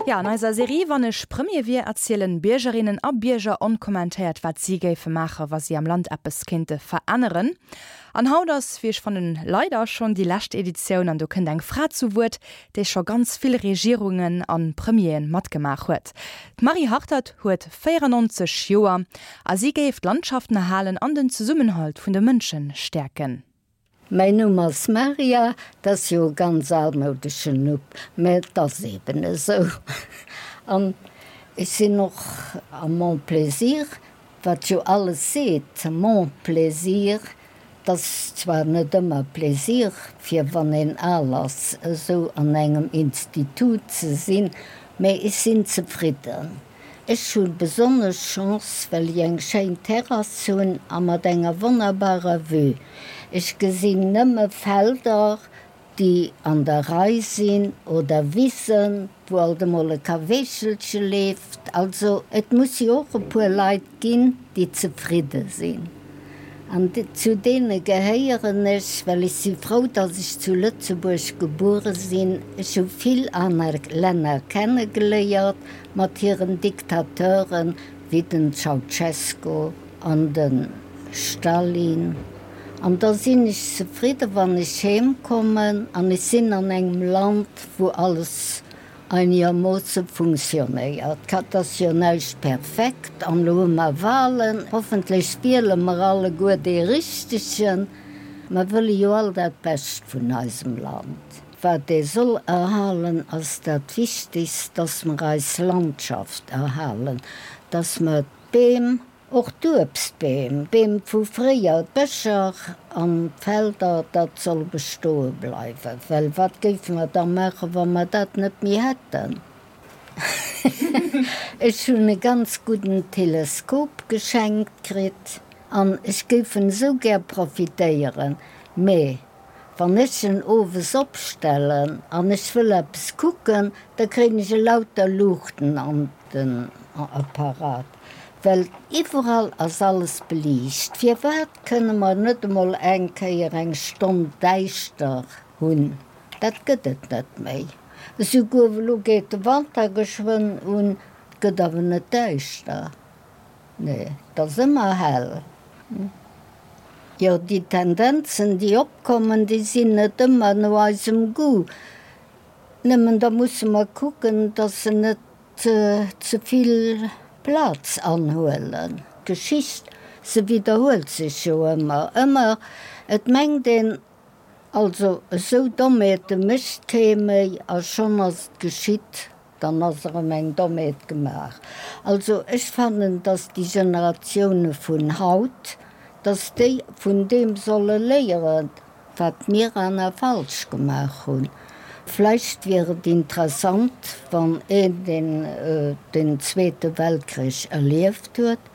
Jo, an eiser Serie Wann ech Premier wier erzielen Biergerinnen a Bierger onkommentéiert, wat si géife maache wa si am Land eppes kéinte veränneren. An haut ass, wéi ech fannen, leider schonn déi lescht Editioun an do kënnt eng Fra zu Wuert, déi scho ganz vill Regierungen a Premieren matgemaach huet. D'Marie Hartert huet 94 Joer a si géif d'Landschaften erhalen an den Zesummenhalt vun de Mënsche stäerken. Mäin Numm ass Maria, 't ass jo e ganz almoudeschen Nupp, mä et ass eben esou. An ech sinn och a mon plaisir, wat jo alles seet, mon plaisir, 't ass zwar net ëmmer Plaisir, fir wann een al ass, esou an engem Institut ze sinn, mä ech sinn zefridden. Ech hu besonnesch Chance, well ech eng schéin Terrass hunn a mat enger wonnerbarer Vue. Ech gesinn nëmme Felder, déi an der Rei sinn, oder Wissen, wou alt emol e Kaweechelche leeft. Also et muss jo och e puer Leit ginn, déi zefridde sinn. An zu deene gehéieren ech, well ech si frou, datt ech zu Lëtzebuerg gebuere sinn. Ech hu vill aner Länner kennegeléiert mat hiren Diktateuren, wéi den Ceausescu an de Stalin. An da sinn ech zefridde wann ech heem kommen an ech sinn an engem Land, wou alles Einegermoosse funktionéiert. Et ass jo näischt perfekt an elo hu mer Wahlen. Hoffentlech wiele mer alleguer dee Richtegen. Mer wëlle jo all dat Bescht vun eisem Land. Wat ee soll erhalen, ass dat Wichtegst, dass mer eis Landschaft erhalen, dass mer d'Beem, Och d'Uebstbeem, Beem vu fréier, d'Bëscher an d'Felder, dat soll bestoe bleiwen, well wat géife mer da maachen, wa mer dat net méi hätten? Ech hunn e ganz gudden Teleskop geschenkt kritt an ech géif en esou gär profitéieren, mee Wann ech en owes opstellen an ech wëll eppes kucken, da kréien ech elauter Luuchten an den Apparat, well iwwerall ass alles beliicht. Firwat kënne mer net emol eng Kéier eng Stonn däischter hunn? Dat gëtt et net méi. Esouguer elo geet de Wanter geschwënn un, et gëtt awer net däischter. Nee, et ass ëmmer hell. Jo, déi Tendenzen, déi opkommen, déi sinn net ëmmer no eisem Goût. Nëmmen da musse mer kucken, datt se net ze vill Plaz anhuelen. D'Geschicht, se widderhuelt sech jo ëmmer. Ëmmer, et mengt een, also esou Dommheete mécht kee méi a schonn ass et geschitt. Dann ass erëm eng Dommheet gemaach. Also ech fannen, dass déi Generatioune vun haut, dass déi vun deem solle léieren, wat mir aner falsch gemaach hunn. Vläicht wier et interessant, wann een, deen den Zweete Weltkrich erlieft huet,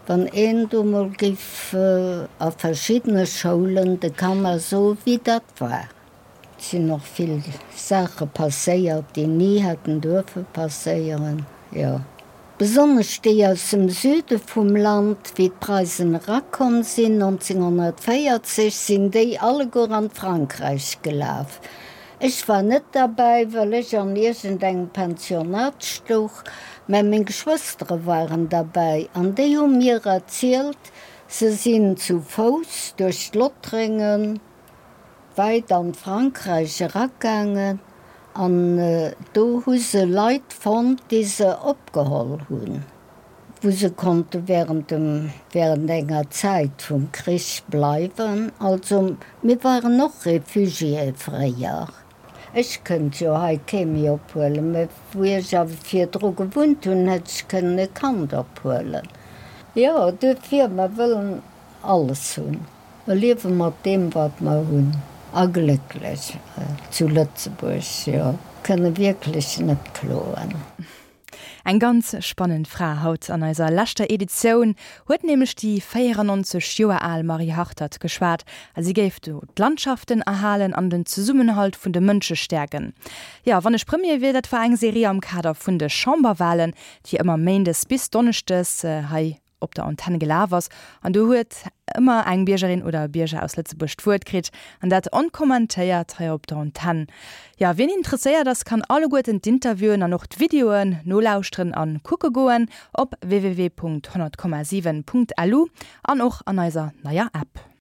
wann een do mol géif a verschiddene Schoulen de Kanner soen, wéi dat war. Et sinn och vill Saache passéiert, déi ni hätten duerfe passéieren, jo. Besonnesch déi aus dem Süde vum Land, wéi d'Preisen erakomm sinn 1940, sinn déi alleguer an d'Frankräich gelaf. Ech war net derbäi, well ech an iergendengem Pensionat stouch, mä meng Geschwëstere waren derbäi an déi hu mir erzielt, se sinn zu Fouss duerch d'Lottréngen, wäit an Frankräich eragaangen an do hu se Leit fonnt, déi se opgeholl hunn, wou se konnte während dem, während enger Zäit vum Krich bleiwen. Also mir waren och Réfugiéë fréier. Ech kënnt jo hei kee méi ophuelen, mä wou ech awer virdru gewunnt hunn, hätt ech kënnen e Kand ophuelen. Jo, duerfir, mer wëllen alles hunn. Mer liewe mat deem, wat mer hunn a glécklech zu Lëtzebuerg, jo, kënne wierklech net kloen. Eng ganz spannend Fra haut an eiser leschter Editioun huet nämlech déi 94 Joer al Marie Hartert geschwat a si géif do d'Landschaften erhalen an den Zesummenhalt vun de Mënsche stäerken. Jo, wann ech Premier wier, dat war eng Serie am Kader vun de Chamberwalen, déi ëmmer méindes bis donneschdes hei. op der Antenn gelaf ass an do huet ëmmer eng Biergerin oder e Bierger aus Lëtzebuerg d'Wuert kritt an dat onkommentéiert hei op der Antenn. Jo, wien interesséiert ass, kann alleguerten d'Interviewen an och d'Videoen nolauschteren an kucke goen op www.100,7.lu an och an eiser neier App.